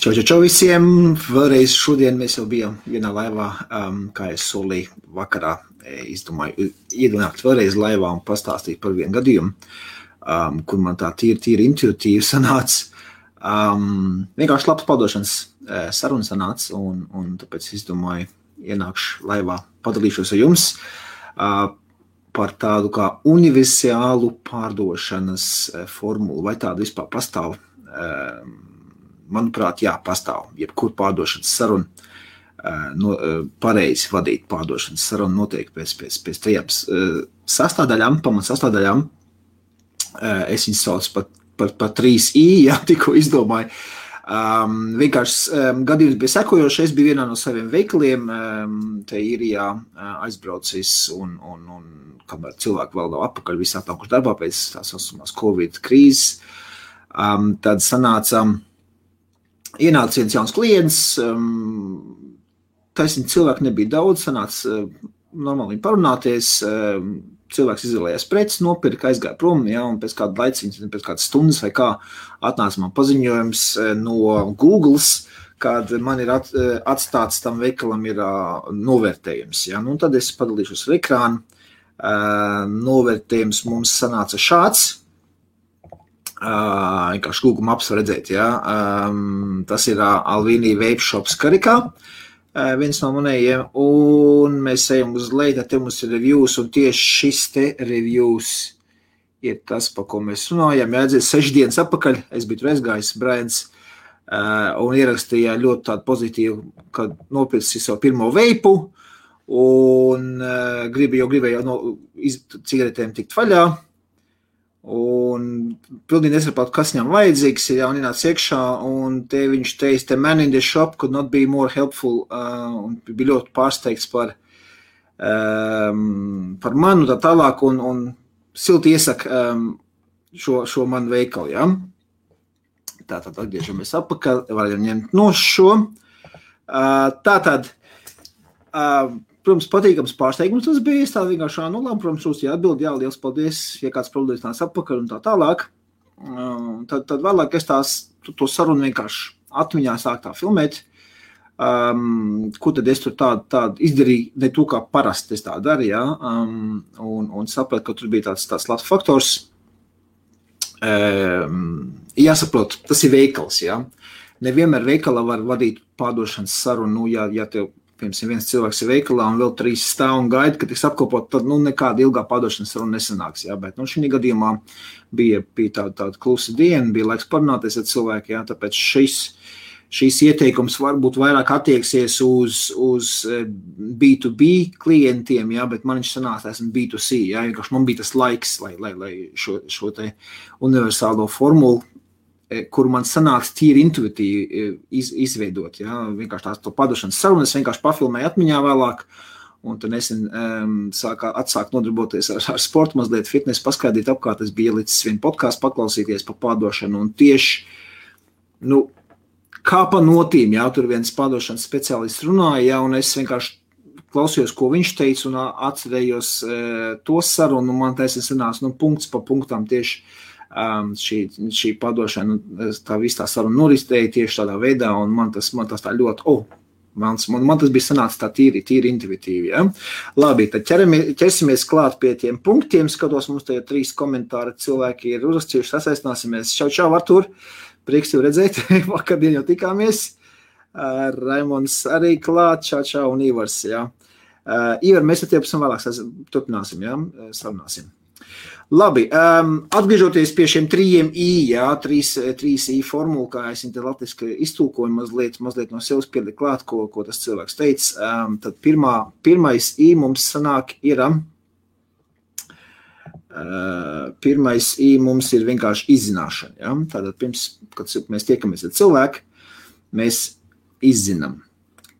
Čau visiem! Vēlreiz šodien mēs jau bijām vienā laivā, kā es solīju vakarā. Izdomāju iedunāt vēlreiz laivā un pastāstīt par vienu gadījumu, kur man tā tīri intuitīvi sanāca. Vienkārši labs padošanas saruna sanāca, un tāpēc izdomāju ienākšu laivā, padalīšos ar jums par tādu kā universālu pārdošanas formulu. Vai tāda vispār pastāv? Manuprāt, jā, pastāv. Jebkur pārdošanas saruna, pareizi vadīt pārdošanas sarunu notiek pēc tajām sastāvdaļām, pamatsastāvdaļām. Es viņus saucu par 3I, jā, tikko izdomāju. Vienkārši gadījums bija sekojoši. Es biju vienā no saviem veikaliem, te Īrijā aizbraucis, un kamēr cilvēki vēl nav atpakaļ, visi atnākuši darbā pēc tās saucamās Covid krīzes, tad ienāca viens jauns klients, taisnīgi cilvēki nebija daudz, sanāca normāli parunāties, cilvēks izvēlējās preces, nopirka, aizgāja prom, ja, un pēc kāda laiciņa, pēc kādas stundas vai kā atnāca man paziņojums no Googles, kad man ir atstāts tam veikalam ir novērtējums. Ja. Nu, tad es padalīšos ar ekrānu. Novērtējums mums sanāca šāds. Vienkārši Google Maps var redzēt, ja. Tas ir Alvīnī Vape Shops Karikā, viens no manējiem, un mēs ejam uz leju, te mums ir reviews, un tieši šis te reviews ir tas, pa ko mēs runājam. Jāatdzies 6 dienas atpakaļ, es biju tur aizgājis, Brains, un ierakstīja ļoti tādu pozitīvu, kad nopircis savu pirmo veipu, un gribēju no cigaretēm tikt vaļā, un pilnīgi nesapratu, kas viņam vajadzīgs, ja un ienāca iekšā, un te viņš teica, the man in the shop could not be more helpful, un bija ļoti pārsteigts par manu tā tālāk, un silti iesaka šo manu veikalu, ja. Tātad atgriežamies atpakaļ, varam ņemt no šo. Tātad, protams, patīkams pārsteigums tas bija, es tā vienkārši labi, protams, jūs jāatbild, jā, liels paldies, ja kāds problēmas nāc atpakaļ un tā tālāk. Tad vēlāk es to sarunu vienkārši atmiņā sāk tā filmēt, ko tad es tur tādu izdarīju, ne to, kā parasti es tā daru, jā, un sapratu, ka tur bija tāds labs faktors. Jāsaprot, tas ir veikals, jā. Nevienmēr veikalā var vadīt pārdošanas sarunu, ja tev piemēram, viens cilvēks ir veikalā un vēl 3 stāv un gaida, ka tiks apkopot, tad nekāda ilgā pārdošanas saruna nesanāks. Jā, bet šī gadījumā bija tāda klusa diena, bija laiks parunāties ar cilvēku, jā, tāpēc šīs ieteikums varbūt vairāk attieksies uz B2B klientiem, jā, bet man viņš sanāca, esmu B2C, jā, vienkārši man bija tas laiks, lai šo te universālo formulu, kur man sanāca tīri intuitīvi izveidot, ja, vienkārši to padošanas sarunu, es vienkārši pafilmēju atmiņā vēlāk, un tad nesen atsāk nodarboties ar sportu, mazliet fitness, paskaidīt apkārt, es biju ielicis vienu podcastu paklausīties par padošanu, un tieši, kā pa notīm, jā, tur viens padošanas speciālists runāja, jā, un es vienkārši klausījos, ko viņš teica, un atcerējos to sarunu, un man taisnīgi sanāca, punkts pa punktam tieši šī padošana, tā viss tā saruna noristēja tieši tādā veidā, un man tas tā ļoti, man tas bija sanācis tā tīri intuitīvi, ja? Labi, tad ķersimies klāt pie tiem punktiem, skatos, mums te ir 3 komentāri, cilvēki ir uzrakstījuši, sasaistināsimies. Čau, Artur, prieks tev redzēt, vakardien jau tikāmies, Raimons arī klāt, čau, un Ivars, ja? Ivar, mēs ar tevi pavisam vēlāk turpināsim, ja? Sarunāsim. Labi, atgriežoties pie šiem 3I, jā, 3I formulu, kā es te latviski iztulkoju, mazliet no sevis pielikt klāt, ko tas cilvēks teica, tad pirmais I mums sanāk ir, pirmais I mums ir vienkārši izzināšana, jā, tātad pirms, kad mēs tiekamies ar cilvēku, mēs izzinām,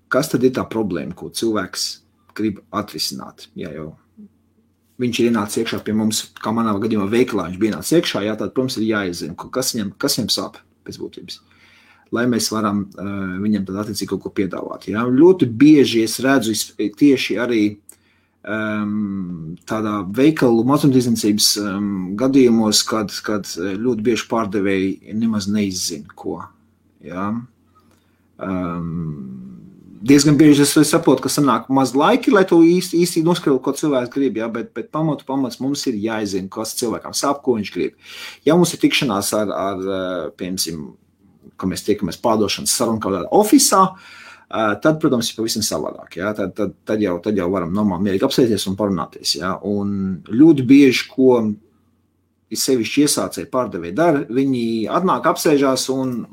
kas tad ir tā problēma, ko cilvēks grib atrisināt, jā, jau. Viņš ir ienācis iekšā pie mums, kā manā gadījumā veikalā, viņš bija ienācis iekšā, jā, tad, protams, ir jāizzina, kas viņam sāp pēc būtības, lai mēs varam viņam tad attiecīgi kaut ko piedāvāt. Jā. Ļoti bieži es redzu tieši arī tādā veikalu mazumtirdzniecības gadījumos, kad ļoti bieži pārdevēji nemaz neizzina, ko. Jā. Diezgan bieži es saprotu, ka sanāk maz laiki, lai to īsti noskaidrotu, ko cilvēks grib, ja? bet pamats mums ir jāizzina, kas cilvēkam sāp, ko viņš grib. Ja mums ir tikšanās ar piemēram, ka mēs tiekamies pārdošanas sarunu kaut kādā ofisā, tad, protams, ir pavisam savādāk. Ja? Tad jau varam normāli mierīgi apsēsties un parunāties. Ja? Un ļoti bieži, ko sevišķi iesācēji pārdevēji dara, viņi atnāk, apsēžās un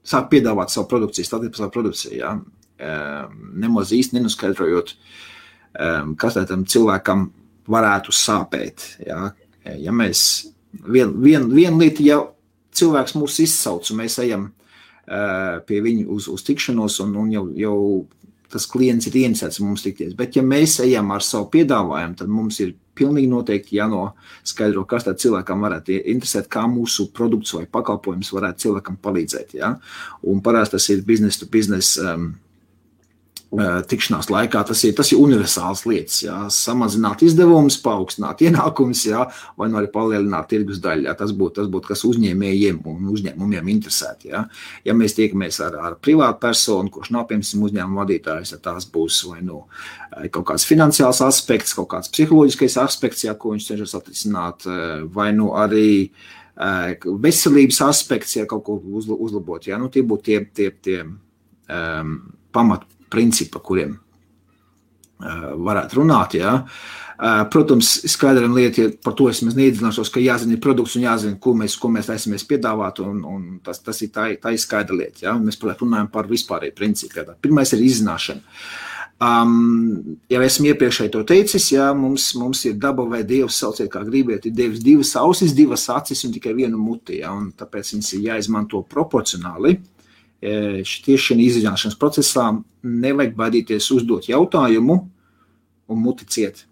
sāk piedāvāt savu produkciju, stādīt par savu produkciju. Ja? Nemaz īsti nenoskaidrojot, kas tam cilvēkam varētu sāpēt. Ja, ja mēs viena lieta, ja cilvēks mūs izsauc un mēs ejam pie viņu uz tikšanos un jau tas klients ir ieinteresēts mums tikties, bet ja mēs ejam ar savu piedāvājumu, tad mums ir pilnīgi noteikti jānoskaidro, kas tad cilvēkam varētu interesēt, kā mūsu produkts vai pakalpojums varētu cilvēkam palīdzēt. Ja? Un parasti tas ir business to business tikšanās laikā, tas ir universāls lietas, jā, samazināt izdevumus, paaugstināt ienākumus, jā, vai arī palielināt tirgus daļu, jā, tas būtu, kas uzņēmējiem un uzņēmumiem interesētu, jā. Ja mēs tiekamies ar privātu personu, kurš nav, piemēram, uzņēmuma vadītājs, ja tās būs vai kaut kāds finansiāls aspekts, kaut kāds psiholoģiskais aspekts, jā, ko viņš cenšas atrisināt, vai arī veselības aspekts, ja kaut ko uzlabot, jā, tie būtu tie pamat principi, par kuriem varētu runāt. Ja. Protams, skaidram lieta, ja par to es neiedzināšos, ka jāzina produkts un jāzina, ko mēs taisamies piedāvāt, un tas ir tā skaidra lieta. Ja. Mēs runājam par vispārēju principu. Ja. Pirmais ir izzināšana. Ja esmu iepriekšēji to teicis, ja, mums ir daba vai Dievs, sauciet kā gribiet, ir Dievs divas ausis, divas acis un tikai vienu muti, ja, un tāpēc viņas ir jāizmanto proporcionāli. Tieši šajā izzināšanas procesā nevajag baidīties uzdot jautājumu un muti ciet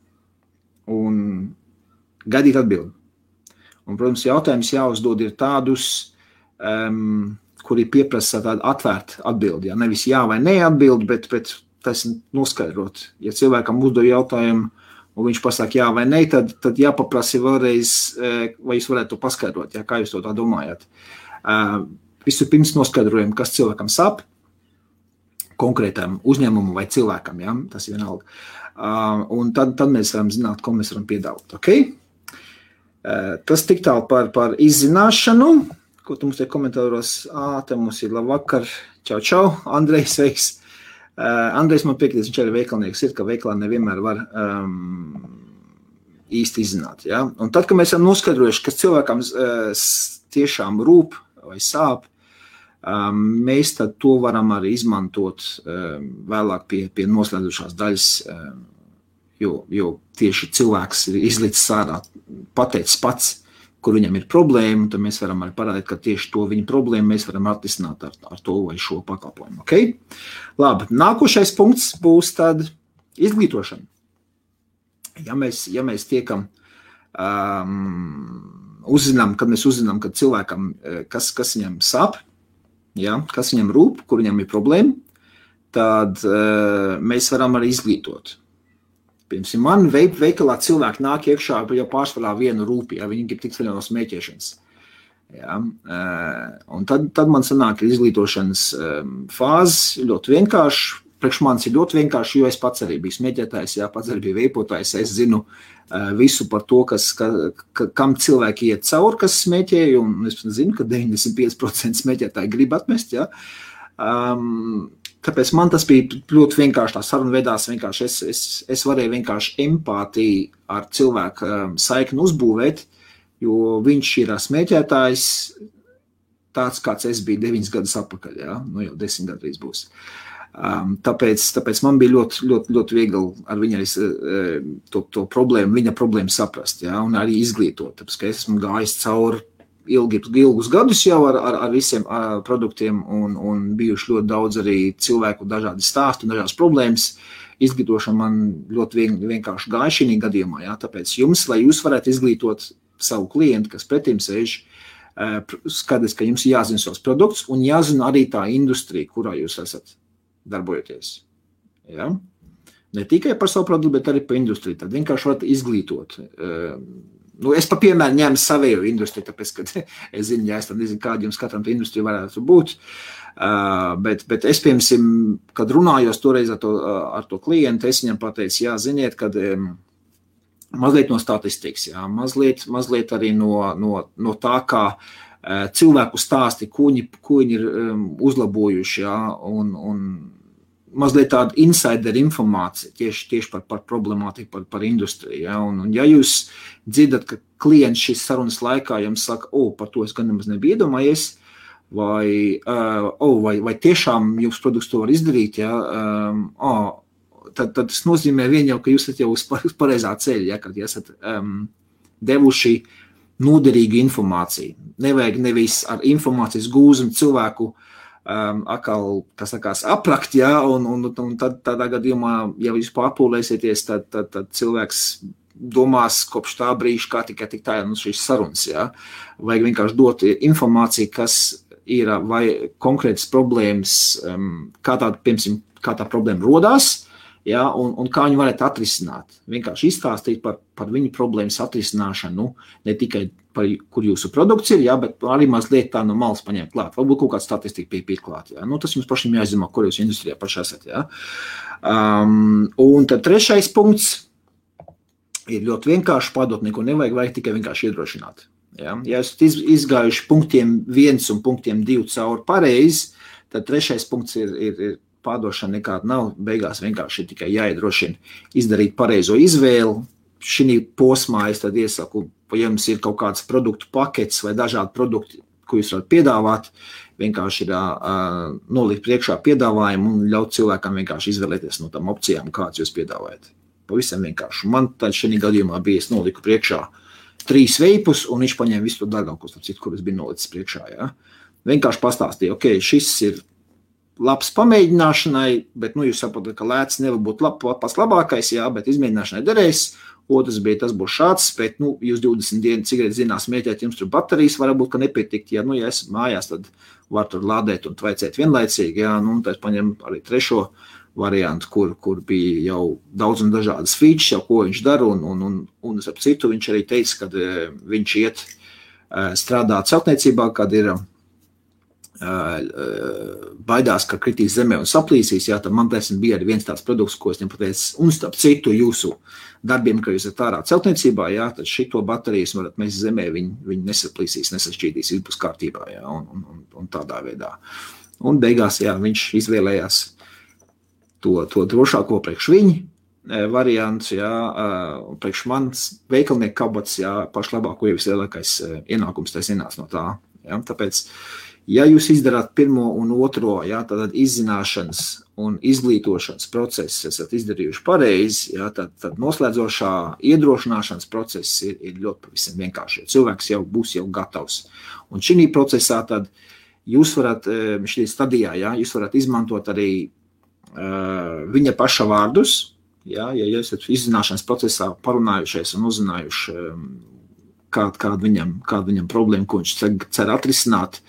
un gaidīt atbildi. Un, protams, jautājums jāuzdod ir tādus, kuri pieprasa tādu atvērtu atbildi. Ja? Nevis jā vai nē atbildi, bet tas noskaidrot. Ja cilvēkam uzdod jautājumu un viņš pasaka jā vai nē, tad jāpaprasa vēlreiz, vai jūs varētu to paskaidrot, ja? Kā jūs to tā domājat. Vispirms noskaidrojam, kas cilvēkam sāp, konkrētam uzņēmumam vai cilvēkam, ja? Tas ir vienalga. Un tad mēs varam zināt, ko mēs varam piedāvāt. Okay? Tas tik tālu par izzināšanu, ko tu mums te komentāros, te mums ir labvakar, čau, Andrejs, sveiks. Andrejs man piekritīs, viņš arī veikalnieks ir, ka veikalā nevienmēr var īsti izzināt. Ja? Un tad, kad mēs esam noskaidrojuši, kas cilvēkam tiešām rūp vai sāp, mēs tad to varam arī izmantot vēlāk pie noslēdzošās daļas, jo tieši cilvēks ir izlicis ārā, pateicis pats, kur viņam ir problēma, tad mēs varam arī parādīt, ka tieši to viņa problēmu mēs varam atrisināt ar to vai šo pakalpojumu. Okay? Labi, nākošais punkts būs tad izglītošana. Ja mēs tiekam kad mēs uzzinām, ka cilvēkam, kas viņam sāp, ja, kas viņam rūp, kur viņam ir problēma, tad mēs varam arī izglītot. Piemēram, man veikalā cilvēki nāk iekšā jau pārsvarā vienu rūpi, ja viņi grib tikt vaļā no smēķēšanas. Ja, un tad man sanāk izglītošanas fāzes ļoti vienkārši. Priekš manis ir ļoti vienkārši, jo es pats arī biju smēķētājs, jā, pats arī biju veipotājs, es zinu visu par to, kam cilvēki iet cauri, kas smēķē, un es zinu, ka 95% smēķētāji grib atmest, jā. Tāpēc man tas bija ļoti vienkārši, tā saruna vedās vienkārši, es varēju vienkārši empātiju ar cilvēku saikni uzbūvēt, jo viņš ir smēķētājs tāds, kāds es biju 9 gadus atpakaļ, jā, jau 10 gadu drīz būs. Tāpēc man bija ļoti viegli ar viņu to problēmu, viņa problēmu saprast, ja, un arī izglītot. Tāpēc, ka es esmu gājis cauri ilgus gadus jau ar visiem produktiem un bijuši ļoti daudz arī cilvēku dažādi stāsti un dažādas problēmas. Izglītošana man ļoti vienkārši gāja šī gadījumā, ja, tāpēc lai jūs varētu izglītot savu klientu, kas pretim sēž, skaties, ka jums jāzina savs produkts un jāzina arī tā industrija, kurā jūs esat darbojoties. Ja? Ne tikai par savu produktu, bet arī par industriju. Tad vienkārši varat izglītot Es pa piemēru ņēmu savēju industriju, tāpēc, ka es zinu, ja es tam nezinu, kāda jums katram tā industrija varētu būt. Bet es, piemēram, kad runājos toreiz ar to klientu, es viņam pateicu, jā, ziniet, kad mazliet no statistikas, jā, mazliet arī no tā, kā cilvēku stāsti, ko viņi ir uzlabojuši, jā, un mazliet tāda insider informācija tieši par problemātiku, par industriju. Ja? Un ja jūs dzirdat, ka klients šīs sarunas laikā jums saka, par to es gan nemaz nebiju iedomājies, vai tiešām jūsu produkts to var izdarīt, ja? Tad tas nozīmē vien jau, ka jūs esat jau uz pareizā ceļa, ja? Kad esat devuši noderīgu informāciju. Nevajag nevis ar informācijas gūzumu cilvēku atkal, kas sakās, aprakt, ja, un tad tādā gadījumā, ja jūs pārpūlēsieties, tad cilvēks domās kopš tā brīža, kā tikai tik tā šīs sarunas, ja. Vajag vienkārši dot informāciju, kas ir vai konkrētas problēmas, kā tā problēma rodās, ja, un kā viņi varētu atrisināt. Vienkārši izstāstīt par viņu problēmas atrisināšanu, ne tikai par kur jūsu produkts ir, ja, bet arī mazliet tā no malas paņemt klāt. Varbūt kaut kāda statistika pie klāt. Ja. Tas jums pašiem jāizdomā, kur jūs industrijā paši esat. Ja. Un tad trešais punkts ir ļoti vienkārši padot, neko vajag tikai vienkārši iedrošināt. Ja. Ja esat izgājuši punktiem 1 un punktiem 2 cauri pareizi, tad trešais punkts ir pārdošana nekāda nav, beigās vienkārši ir tikai jāiedrošina izdarīt pareizo izvēli. Šī posmā es tad iesaku, ja jums ir kaut kāds produktu paketes vai dažādi produkti, ko jūs varat piedāvāt, vienkārši ir nolikt priekšā piedāvājumu un ļaut cilvēkam vienkārši izvēlēties no tām opcijām, kādas jūs piedāvājat. Pavisam vienkārši. Man tad šī gadījumā bija, es noliku priekšā 3 veipus, un viņš paņēma visu to dārgākos, kurus bija nolicis priekšā. Ja? Vienkārši pastāstīja, šis ir labs pamēģināšanai, bet jūs saprotat, ka lēts nevar būt pats labākais, jā, bet izmēģināšanai derēs. Otrs bija, tas būs šāds, bet jūs 20 dienas cigaretes zinās mēģēt, jums tur baterijas varbūt, ka nepietikt. Ja esat mājās, tad var tur lādēt un tvaicēt vienlaicīgi. Jā, tad paņem arī trešo variantu, kur bija jau daudz un dažādas features, jau ko viņš dara, un ap citu viņš arī teica, kad viņš iet strādāt celtniecībā, kad ir baidās, ka kritīs zemē un saplīsīs, jā, tad man bija arī viens tāds produkts, ko es viņam pateicu, un starp citu jūsu darbiem, ka jūs esat ārā celtniecībā, jā, tad šito baterijas varat mest zemē, viņi nesaplīsīs, nesašķīdīs, viss būs kārtībā, jā, un tādā veidā. Un beigās, jā, viņš izvēlējās to drošāko priekš viņa variants, jā, priekš mans veikalnieku kabatas, jā, pašlabāko jau vislielākais ienākums tas ienāc no tā, jā, tāpēc ja jūs izdarāt pirmo un otro, jā, tad izzināšanas un izglītošanas process esat izdarījuši pareizi, jā, tad noslēdzošā iedrošināšanas process ir ļoti pavisam vienkārši. Cilvēks jau būs jau gatavs. Un šī procesā tad jūs varat, šī stadijā, jā, jūs varat izmantot arī viņa paša vārdus, jā, ja esat izzināšanas procesā parunājušies un uzzinājuši, kāda viņam problēma, ko viņš cer atrisināt,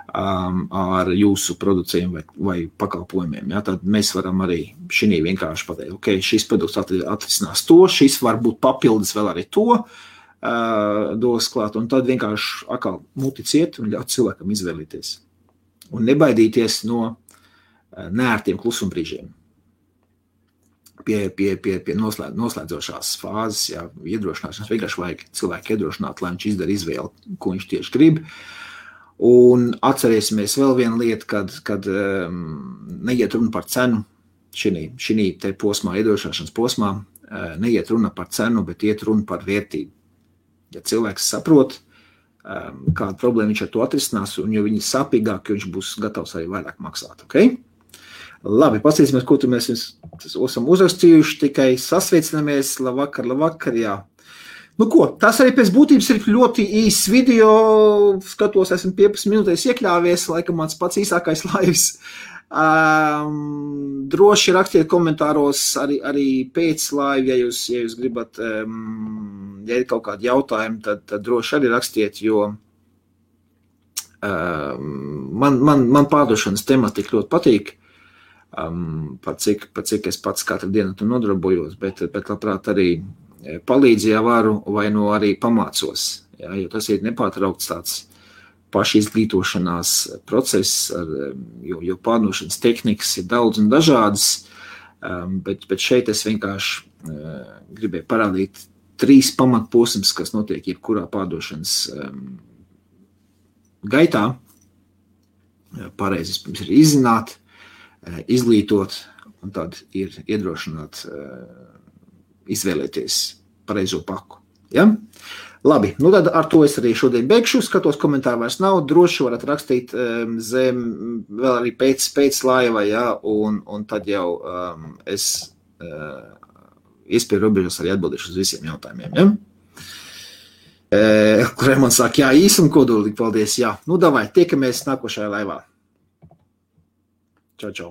ar jūsu produkcijiem vai pakalpojumiem. Ja? Tad mēs varam arī šī vienkārši pateikt, šis produkts atrisinās to, šis var būt papildus vēl arī to dos klāt, un tad vienkārši atkal muticiet un ļaut cilvēkam izvēlīties. Un nebaidīties no neērtiem klusumbrīžiem. Pie noslēdzošās fāzes, jā, iedrošināšanas, vienkārši vajag cilvēku iedrošināt, lai viņš izdara izvēli, ko viņš tieši grib. Un atcerēsimies vēl vienu lietu, kad neiet runa par cenu, šī te posmā, iedrošināšanas posmā, neiet runa par cenu, bet iet runa par vērtību. Ja cilvēks saprot, kādu problēmu viņš ar to atrisinās, un jo viņi sāpīgāk, viņš būs gatavs arī vairāk maksāt, Labi, paskatīsimies, ko tu mēs esam uzrakstījuši, tikai sasveicinamies, labvakar, jā. Tas arī pēc būtības ir ļoti īsts video, skatos, esmu 15 minūtēs iekļāvies, laikam mans pats īsākais laivs. Droši rakstiet komentāros arī pēc laiva, ja jūs gribat, ja ir kaut kādi jautājumi, tad droši arī rakstiet, jo man pārdošanas tematika ļoti patīk. Par cik es pats katru dienu tu nodarbojos, bet labprāt arī palīdzu, ja varu, vai nu arī pamācos. Ja, jo tas ir nepārtraukts tāds pašizglītošanās process, jo pārdošanas tehnikas ir daudz un dažādas, bet šeit es vienkārši gribēju parādīt 3 pamatposms, kas notiek jebkurā pārdošanas gaitā. Pareizi pirms ir izzināt, izglītot un tad ir iedrošināt izvēlēties pareizo paku. Ja? Labi, nu tad ar to es arī šodien beigšu. Skatos, komentāru vairs nav. Droši varat rakstīt zem vēl arī pēc laiva, ja? Un tad jau es iespēju robežas arī atbildīšu uz visiem jautājumiem. Ja? Kuriem man saka, jā, īsi un kodolīgi, paldies, jā. Nu, davai, tiekamies nākošajā laivā. Čau, čau.